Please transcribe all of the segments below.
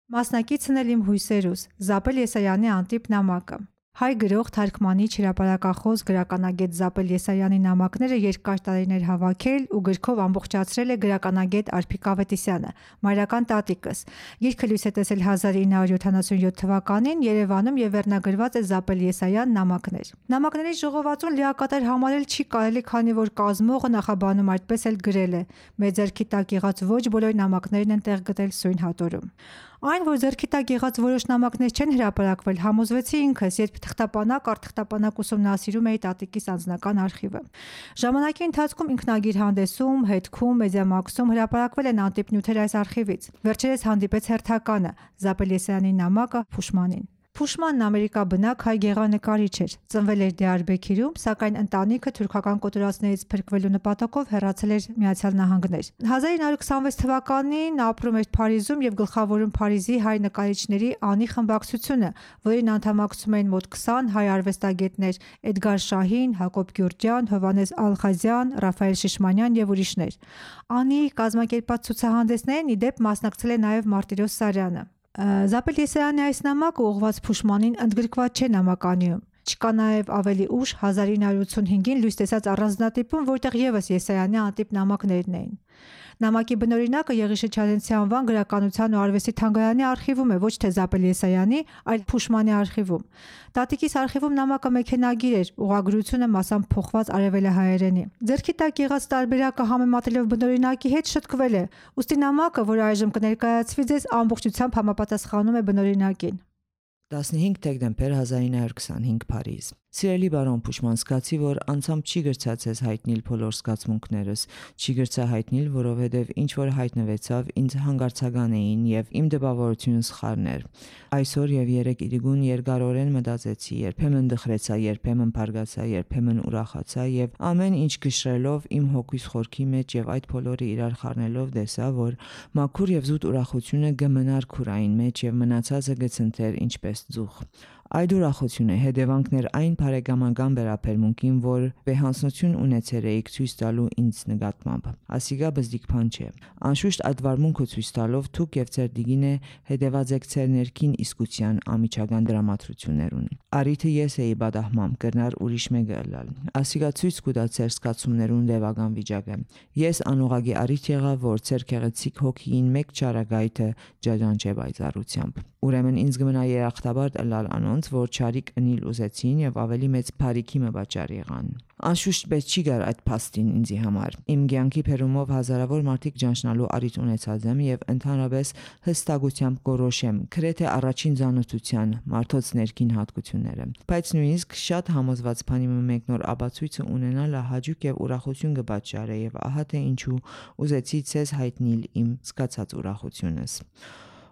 Մասնակիցն էլ իմ հույսերուս, Զապել Եսայանի անտիպ նամակը։ Հայ գրող, թարգմանիչ, հրապարակախոս, գրականագետ Զապել Եսայանի նամակները երկար տարիներ հավաքել ու գրքով ամբողջացրել է գրականագետ Արփիկ Ավետիսյանը, մայրական տատիկս։ Գիրքը լույս է տեսել 1977 թվականին Երևանում եւ վերնագրված է Զապել Եսայան նամակներ։ Նամակների ժողովածուն լիակատար համարել չի կարելի, քանի որ կազմողը նախաբանում այդպես էլ գրել է. «Մեր ձեռքի տակ եղած ոչ բոլոր նամակներն են տեղ գտել սույն հատորում»։ Այն, որ ձեռքի տակ եղած որոշ նամակներ չեն հրապարակվել, համոզվեցի ինքս, երբ թղթապանակ առ թղթապանակ ուսումնասիրում էի տատիկիս անձնական արխիվը։ Ժամանակի ընթացքում ինքնագիր-հանդեսում, հետքում, մեդիամաքսում հրապարակվել են անտիպ նյութեր այս արխիվից։ Վերջերս հանդիպեց հերթականը՝ Զապել Եսայանի նամակը Փուշմանին։ Փուշմանն ամերիկաբնակ հայ գեղանկարիչ էր, ծնվել էր Դիարբեքիրում, սակայն ընտանիքը թուրքական կոտորածներից փրկվելու նպատակով հեռացել էր ԱՄՆ։ 1926 թվականին ապրում էր Փարիզում եւ գլխավորում Փարիզի հայ նկարիչների անի խմբակցությունը, որին անդամակցում էին մոտ 20 հայ արվեստագետներ՝ Էդգար Շահին, Հակոբ Գյուրջյան, Հովհաննես Ալխազյան, Ռաֆայել Շիշմանյան եւ ուրիշներ։ Անի կազմակերպած ցուցահանդեսներին ի դեպ մասնակցել է նաեւ Մարտիրոս Սարյանը։ Զապել Եսայանի այս նամակը ուղղված Փուշմանին ընդգրկված չէ նամականիում։ Չկա նաև ավելի ուշ 1985-ին լույս տեսած առանձնատիպում, որտեղ եւս Եսայանի անտիպ նամակներն էին։ Նամակի բնօրինակը Եղիշե Չալենցի անվան գրականության ու արվեստի թանգարանի արխիվում է, ոչ թե Զապել Եսայանի, այլ Փուշմանի արխիվում։ Տատիկիս արխիվում նամակը մեքենագիր էր, ուղղագրությունը մասամբ փոխված արևելահայերենի։ Ձեռքի տակ եղած տարբերակը համեմատելով բնօրինակի հետ շտկվել է, ուստի նամակը, որ այժմ կներկայացվի ձեզ, ամբողջությամբ համապատասխանում է բնօրինակին։ 15 դեկտեմբեր 1925 Փարիզ։ Սիրելի բարոն Փուշման, զգացի, որ անցամ չի գրծած ես հայտնիլ բոլոր զգացմունքներս, չի գրծա հայտնիլ, որովհետև ինչ որ հայտնվեցավ ինձ հանգարցական էին եւ իմ դպավորությունը սխալներ։ Այսօր եւ երեք իրգուն երկարորեն մտածեցի, երբեմն դխրեցա, երբեմն բարգացա, երբեմն ուրախացա եւ ամեն ինչ գշրելով իմ հոգիս խորքի մեջ եւ այդ բոլորը իրար խառնելով տեսա, որ մաքուր եւ զուտ ուրախությունը կմնար քուրային մեջ եւ մնացածը գցընթեր ինչպես ձուխ։ Այդ ուրախությունը հետևանքներ այն բարեկամական վերաբերմունքին, որ վեհանցություն ունեցել էիք ցույց տալու ինձ նկատմամբ։ Ասիգա բզդիկ բան չէ։ Անշուշտ այդ վարմունքը ցույց տալով դուք եւ ձեր դիգինը հետևած եք ձեր ներքին իսկության ամիջական դրամատրություններուն։ Արիթը ես էի բադահմամ կրնար ուրիշ մեկը ըլլալ։ Ասիգա ցույց կուտա ձեր զգացումներուն լեվական վիճակը։ Ես անուղագի արիթ եղա, որ ձեր քեղեցիկ հոգին մեկ ճարագայթը ջաջանչե բայցարությամբ։ Ուրեմն ինձ գմնա երախտաբար ըլլալ անոնց, որ չարիք ընիլ ուզեցին եւ ավելի մեծ բարիքի մը բաճար եղան։ Անշուշտ պետք չի գար այդ փաստին ինձի համար։ Իմ կյանքի փերումով հազարավոր մարդիկ ճանչնալու արիթ ունեցած եմ եւ ընդհանրապես հստակությամբ գորոշեմ քրեթե առաջին զանոթության մարդոց ներքին հատկությունները։ Բայց նույնիսկ շատ համոզված բանի մեկ նոր աբացույցը ունենալը հաճույք եւ ուրախություն կբաճարե եւ ահա թե ինչու ուզեցի ցեզ հայտնել իմ զգացած ուրախությունս։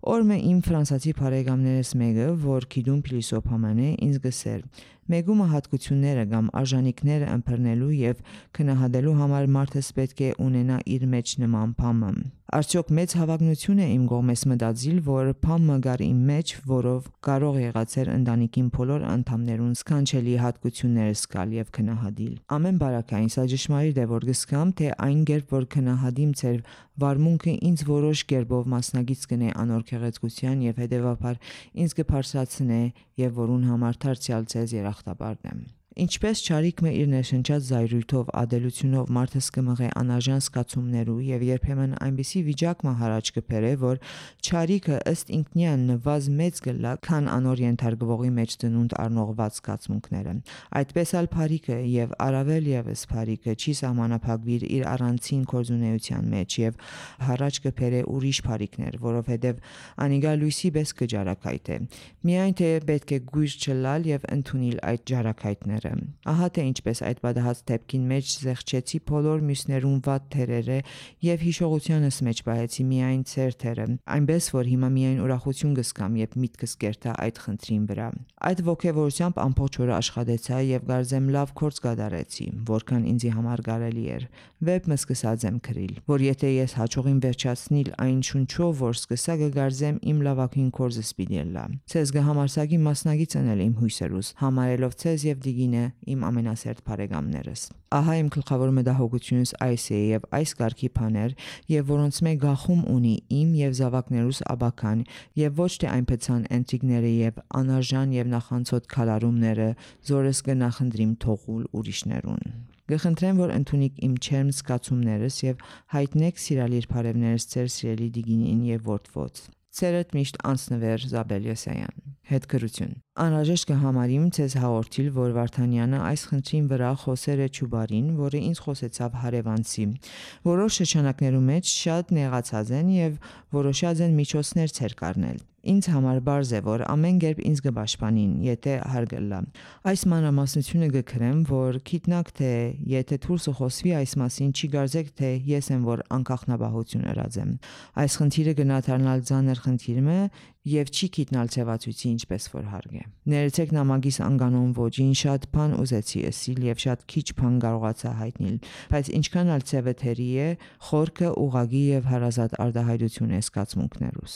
Օրմե իմ ֆրանսացի բարեկամներս մեկը, որ գիտում փիլիսոփաման է, ինձ գսեր. Մեգումը հատկությունները կամ արժանինքները ըմբռնելու եւ քնահատելու համար մարդը պետք է ունենա իր մեջ նման բամը։ Արդյոք մեծ հավակնություն է իմ կողմես մտածիլ, որ բամը գար իմ մեջ, որով կարող եղածեր ընտանիքին բոլոր անդամներուն սքանչելի հատկությունները սկալ եւ քնահատիլ։ Ամեն բարակային սա ճշմարիտ է, որ գսկամ, թե այն կերպ որ քնահատիմ ձեր վարմունքը ինձ որոշ կերպով մասնագից կնե անոր քեղեցկության եւ հետեւաբար ինձ կբարձրացնե եւ որուն համար դարձյալ ձեզ երախտաբարն եմ։ Ինչպես չարիքը իր ներշնչած զայրույթով ադելությունով մարդս կմղե անարժան զգացումներու եւ երբեմն այնպիսի վիճակը հարաճ կբերե, որ չարիքը ըստ ինքնյան նվազ մեծ գլա, քան անոր ենթարկվողի մեջ դնունդ առնողված զգացմունքները։ Այդպես ալ բարիքը եւ առավել եւս բարիքը չի սահմանափակվիր իր առանցին կորզունեության մեջ եւ հարաճ կբերե ուրիշ բարիքներ, որովհետեւ անիգա լույսի պես կջարակայթ է։ Միայն թե պետք է գույր չլալ եւ ընդունել այդ ջարակայթները։ Ահա թե ինչպես այդ բադահած դեպքին մեջ զեղչեցի բոլոր մյուսներուն վատ թերերը եւ հիշողությանս մեջ բահեցի միայն ծեր թերը, այնպես որ հիմա միայն ուրախություն կսկամ եւ միտքս կերտա այդ խնդրին վրա։ Այդ ողջավորությամբ ամբողջ օրը աշխատեցա եւ գարձեմ լավ կորց կդարեցի, որքան ինձի համար կարելի էր։ Վեբ մը սկսած եմ գրիլ, որ եթե ես հաջողին վերջացնիլ այն շունչով, որ սկսա կգարձեմ իմ լավագույն կորզս պիտի լա։ Ցեզ կհամարսակի մասնագիծ անել իմ հույսերուս, համարելով ցեզ եւ դիգին 9 իմ ամենասերտ բարեկամներս։ Ահա իմ գլխավոր մտահոգությունս այս է եւ այս կարգի բաներ, եւ որոնց մեկ գախում ունի իմ եւ զավակներուս աբական, եւ ոչ թե այն փեցան ընտրիկները եւ անարժան եւ նախանցոտ քալարումները, զորս կնախնդրիմ թողուլ ուրիշներուն։ Գխնդրեմ, որ ընդունիք իմ չերմ զգացումներս եւ հայտնեք սիրալիր բարևներս ձեր սիրելի դիգինին եւ որդվոց։ Ցերետ միշտ անցնվեր Զաբել Եսայան։ Հետգրություն։ Անհրաժեշտ կհամարիմ ցեզ հաղորդիլ, որ Վարդանյանը այս խնդրին վրա խոսեր է Չուբարին, որը ինձ խոսեցավ հարևանցի։ Որոշ շրջանակներում մեջ շատ նեղացած են եւ որոշած են միջոցներ ցեր կառնել։ Ինձ համար բարձ է, որ ամեն կերպ ինձ կպաշտպանին, եթե հարգելա։ Այս մանրամասնությունը գկրեմ, որ գիտնակ թե եթե դուրսը խոսվի այս մասին, չի գարձեք թե ես եմ որ անկախնաբահություն ըրած եմ։ Այս խնդիրը գնահատանալ ցաներ խնդիրը է եւ չի գիտնալ ցեվացույցի ինչպես որ հարգ է։ Ներեցեք նամակիս անկանոն ոճին շատ բան ուզեցի ասիլ եւ շատ քիչ բան կարողացա հայտնել, բայց ինչքան ալ ցեվեթերի է, խորքը ուղագի եւ հարազատ արտահայտություն է զգացմունքներուս։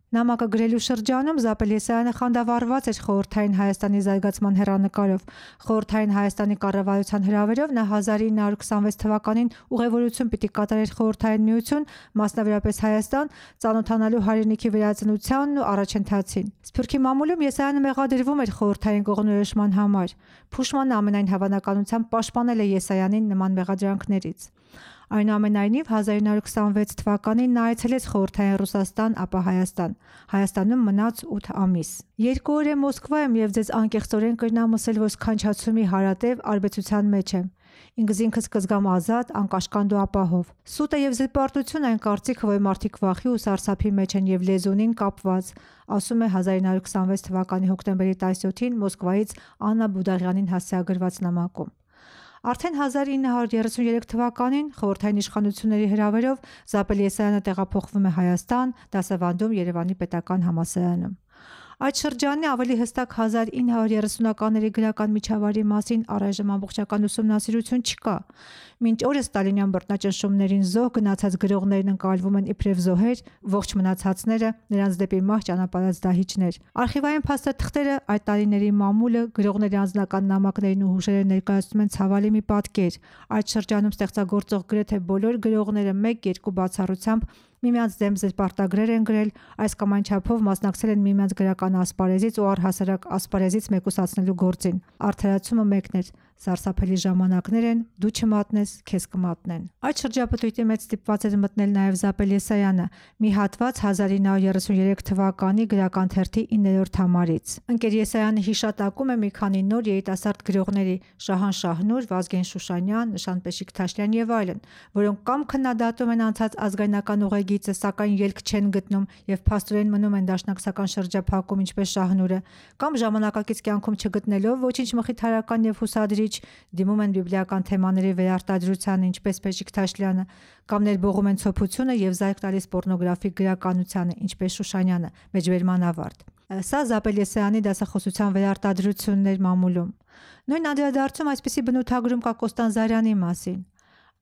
Նամակը գրելու շրջանում Զաբել Եսայանը խանդավառված էր խորհրդային Հայաստանի զարգացման հեռանկարով։ Խորհրդային Հայաստանի կառավարության հրավերով նա 1926 թվականին ուղևորություն պիտի կատարեր Խորհրդային Միություն, մասնավորապես Հայաստան, ծանոթանալու հայրենիքի վերածնությանն ու առաջընթացին։ Սփյուռքի մամուլում Եսայանը մեղադրվում էր խորհրդային կողմնորոշման համար։ Փուշմանը ամենայն հավանականությամբ պաշտպանել է Եսայանին նման մեղադրանքներից։ Այնուամենայնիվ 1926 թվականին նա այցելեց խորհրդային Ռուսաստան, ապա Հայաստան։ Հայաստանում մնաց 8 ամիս։ 2 օր է Մոսկվա եմ եւ ձեզ անկեղծորեն կրնամ ասել, որ սքանչացումի հարատև արբեցության մեջ եմ։ Ինքս կզգամ ազատ, անկաշկանդ ու ապահով։ Սուտ է եւ զրպարտություն այն կարծիքը, որ մարդիկ վախի ու սարսափի մեջ են եւ լեզունին կապված, ասում է 1926 թվականի հոկտեմբերի 17-ին Մոսկվայից Աննա Բուդաղյանին հասցեագրված նամակում։ Արդեն 1933 թվականին խորհրդային իշխանությունների հրավերով Զաբել Եսայանը տեղափոխվում է Հայաստան, դասավանդում Երևանի պետական համալսարանում։ Այդ շրջանի ավելի հստակ 1930-ականների գրական միջավայրի մասին առայժմ ամբողջական ուսումնասիրություն չկա։ Մինչ օրս ստալինյան բռնաճնշումներին զոհ գնացած գրողներն ընկալվում են իբրև զոհեր, ողջ մնացածները նրանց դեպի մահ ճանապարհած դահիճներ։ Արխիվային փաստաթղթերը այդ տարիների մամուլը գրողների անձնական նամակներին ու հուշերը ներկայացնում են ցավալի մի պատկեր։ Այդ շրջանում ստեղծագործող գրեթե բոլոր գրողները 1-2 բացառությամբ միմյանց դեմ զրպարտագրեր են գրել, այս կամ այն չափով մասնակցել են միմյանց գրական ասպարեզից ու առհասարակ ասպարեզից մեկուսացնելու գործին։ Արդարացումը մեկն էր՝ սարսափելի ժամանակներ են, դու չմատնես, քեզ կմատնեն։ Այդ շրջապտույտի մեջ ստիպված էր մտնել նաև Զաբել Եսայանը, մի հատված 1933 թվականի գրական թերթի 9-րդ համարից։ Ընկեր Եսայանը հիշատակում է մի քանի նոր երիտասարդ գրողների՝ Շահան Շահնուր, Վազգեն Շուշանյան, Նշան Պեշիկ-Թաշլյան եւ այլն, որոնք կամ քննադատում են անցած ազգայնական ուղեգիծը, սակայն ելք չեն գտնում եւ փաստորեն մնում են դաշնակցական շրջափակում, ինչպես Շահնուրը, կամ ժամանակակից կյանքում չգտնելով ոչինչ մխիթարական եւ հուսադրիչ դիմում են բիբլիական թեմաների վերարտադրությանը, ինչպես Պեշիկ-Թաշլյանը, կամ ներբողում են ցոփությունը եւ զայք տալիս պոռնոգրաֆիկ գրականությանը, ինչպես Շուշանյանը, մեջբերման ավարտ։ Սա Զաբել Եսայանի դասախոսության վերարտադրություններ մամուլում։ Նույն անդրադարձում այսպիսի բնութագրում կա Կոստան Զարյանի մասին։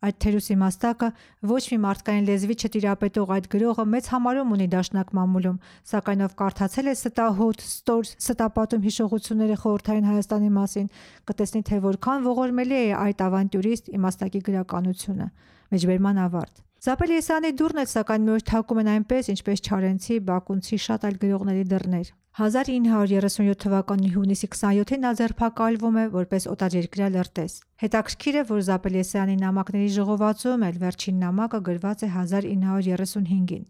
Այդ թերուսի մաստակը ոչ մի մարդկային լեզվի չտիրապետող այդ գրողը մեծ համարում ունի դաշնակ մամուլում, սակայն ով կարդացել է ստահոտ, ստոր, ստապատում հիշողությունները խորհրդային Հայաստանի մասին, կտեսնի, թե որքան ողորմելի է այդ ավանտյուրիստ իմաստակի գրականությունը։ Մեջբերման ավարտ։ Զաբել Եսայանի դուռն էլ սակայն մի օր թակում են այնպես, ինչպես Չարենցի, Բակունցի շատ այլ գրողների դռներ։ 1937 թվականի հունիսի 27-ին նա ձերբակալվում է որպես օտարերկրյա լրտես։ Հետաքրքիր է, որ Զաբել Եսայանի նամակների ժողովածուում էլ վերջին նամակը գրված է 1935-ին։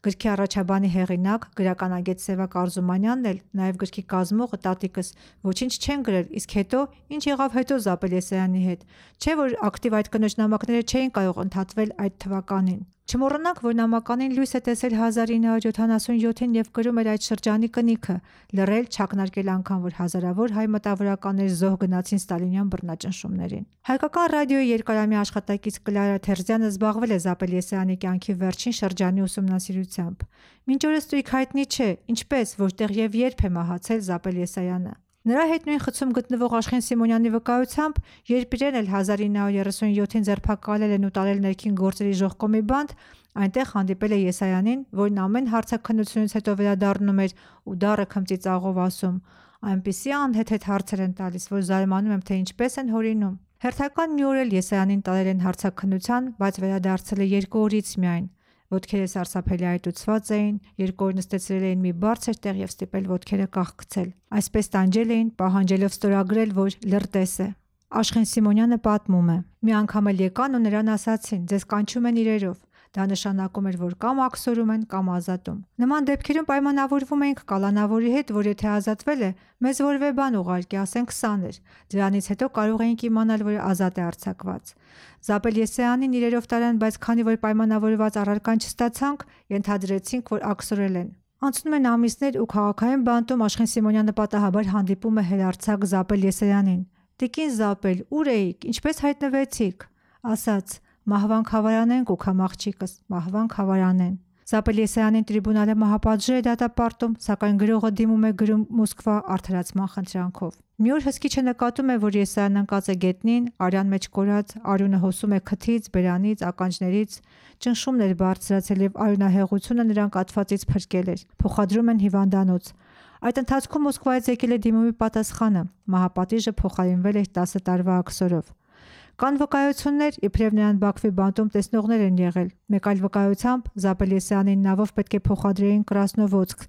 Գրքի առաջաբանի հեղինակ գրականագետ Սևակ Արզումանյանն էլ, նաև գրքի կազմողը տատիկս ոչինչ չեն գրել, իսկ հետո ինչ եղավ հետո Զաբել Եսայանի հետ։ Չէ՞ որ ակտիվ այդ կնոջ նամակները չէին կարող ընդհատվել այդ թվականին։ Չմոռանանք, որ նամականին լույս է տեսել 1977-ին եւ գրում էր այդ շրջանի կնիքը, լռել, չակնարկել անգամ, որ հազարավոր հայ մտավորականներ զոհ գնացին ստալինյան բռնաճնշումներին։ Հայկական ռադիոյի երկարամյա աշխատակից Կլարա Թերզյանը զբաղվել է Զաբել Եսայանի կյանքի վերջին շրջանի ուսումնասիրությամբ։ Մինչ օրս տույք հայտնի չէ, ինչպես, որտեղ եւ երբ է մահացել Զաբել Եսայանը։ Նրա հետ նույն խցում գտնվող Աշխեն Սիմոնյանի վկայությամբ, երբ իրեն էլ 1937-ին ձերբակալել են ու տարել ներքին գործերի ժողկոմի բանտ, Այնտեղ հանդիպել է Եսայանին, որն ամեն հարցաքննությունից հետո վերադառնում էր ու դառը քմծիծաղով ասում. «Այնպիսի անհեթեթ հարցեր են տալիս, որ զարմանում եմ, թե ինչպես են հորինում»։ Հերթական մի օր էլ Եսայանին տարել են հարցաքննության, բայց վերադարձել է 2 օրից միայն։ Ոտքերը սարսափելի այտուցված էին, 2 օր նստեցրել էին մի բարձր տեղ և ստիպել ոտքերը կախքցել։ Այսպես տանջել էին, պահանջելով ստորագրել, որ լրտես է։ Աշխեն Սիմոնյանը պատմում է. «Մի անգամ էլ եկան ու նրան ասացին. ձեզ կանչում են իրերով։ Դա նշանակում էր, որ կամ աքսորում են, կամ ազատում։ Նման դեպքերում պայմանավորվում էինք կալանավորի հետ, որ եթե ազատվել է, մեզ որևէ բան ուղարկի, ասենք 20 էր։ Դրանից հետո կարող էինք իմանալ, որ ազատ է արձակված։ Զապել Եսայանին իրերով տարան, բայց քանի որ պայմանավորված առարկան չստացանք, ենթադրեցինք, որ աքսորել են։ Անցնում են ամիսներ ու քաղաքային բանտում Աշխեն Սիմոնյանը պատահաբար հանդիպում է հերարձակ Զապել Եսայանին։ «Տիկին Զապել, ուր էիք, ինչպես հայտնվեցիք»։ Ասաց. «Մահվան խավարանեն կուքամ աղջիկս, մահվան խավարանեն»։ Զապել Եսայանին տրիբունալը մահապատժ է դատապարտում, սակայն գրողը դիմում է գրում Մոսկվա արդարացման խնդրանքով։ Մի օր հսկիչը նկատում է, որ Եսայանն ընկած է գետնին, արյան մեջ կորած, արյունը հոսում է քթից, բերանից, ականջներից, ճնշումն էր բարձրացել և արյունահեղությունը նրան կաթվածից փրկել էր։ Փոխադրում են հիվանդանոց։ Այդ ընթացքում Մոսկվայից եկել է դիմումի պատասխանը։ Մահապատիժը փոխարինվել էր 10 տարվա աքսորով։ Կան վկայություններ, իբրև նրան Բաքվի բանտում տեսնողներ են եղել։ Մեկ այլ վկայությամբ Զապել Եսայանին նավով պետք է փոխադրեին Կրասնովոդսկ,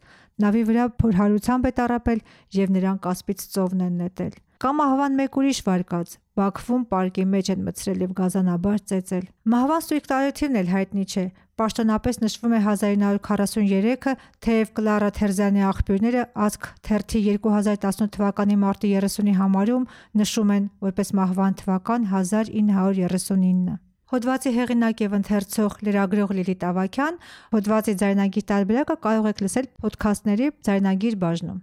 նավի վրա փորհարությամբ է տառապել և նրան կասպից ծովն են նետել։ Կա մահվան մեկ ուրիշ վարկած։ Բաքվում պարկի մեջ են մտցրել և գազանաբար ծեծել։ Մահվան ստույգ տարեթիվն էլ հայտնի չէ։ Պաշտոնապես նշվում է 1943-ը, թեև Կլարա Թերզյանի աղբյուրները Ազգ թերթի 2018 թվականի մարտի 30-ի համարում նշում են որպես մահվան թվական 1939։ Հոդվածի հեղինակ և ընթերցող լրագրող Լիլիթ Ավագյան, հոդվածի ձայնագիր տարբերակը կարող եք լսել փոդքասթների ձայնագիր բաժնում։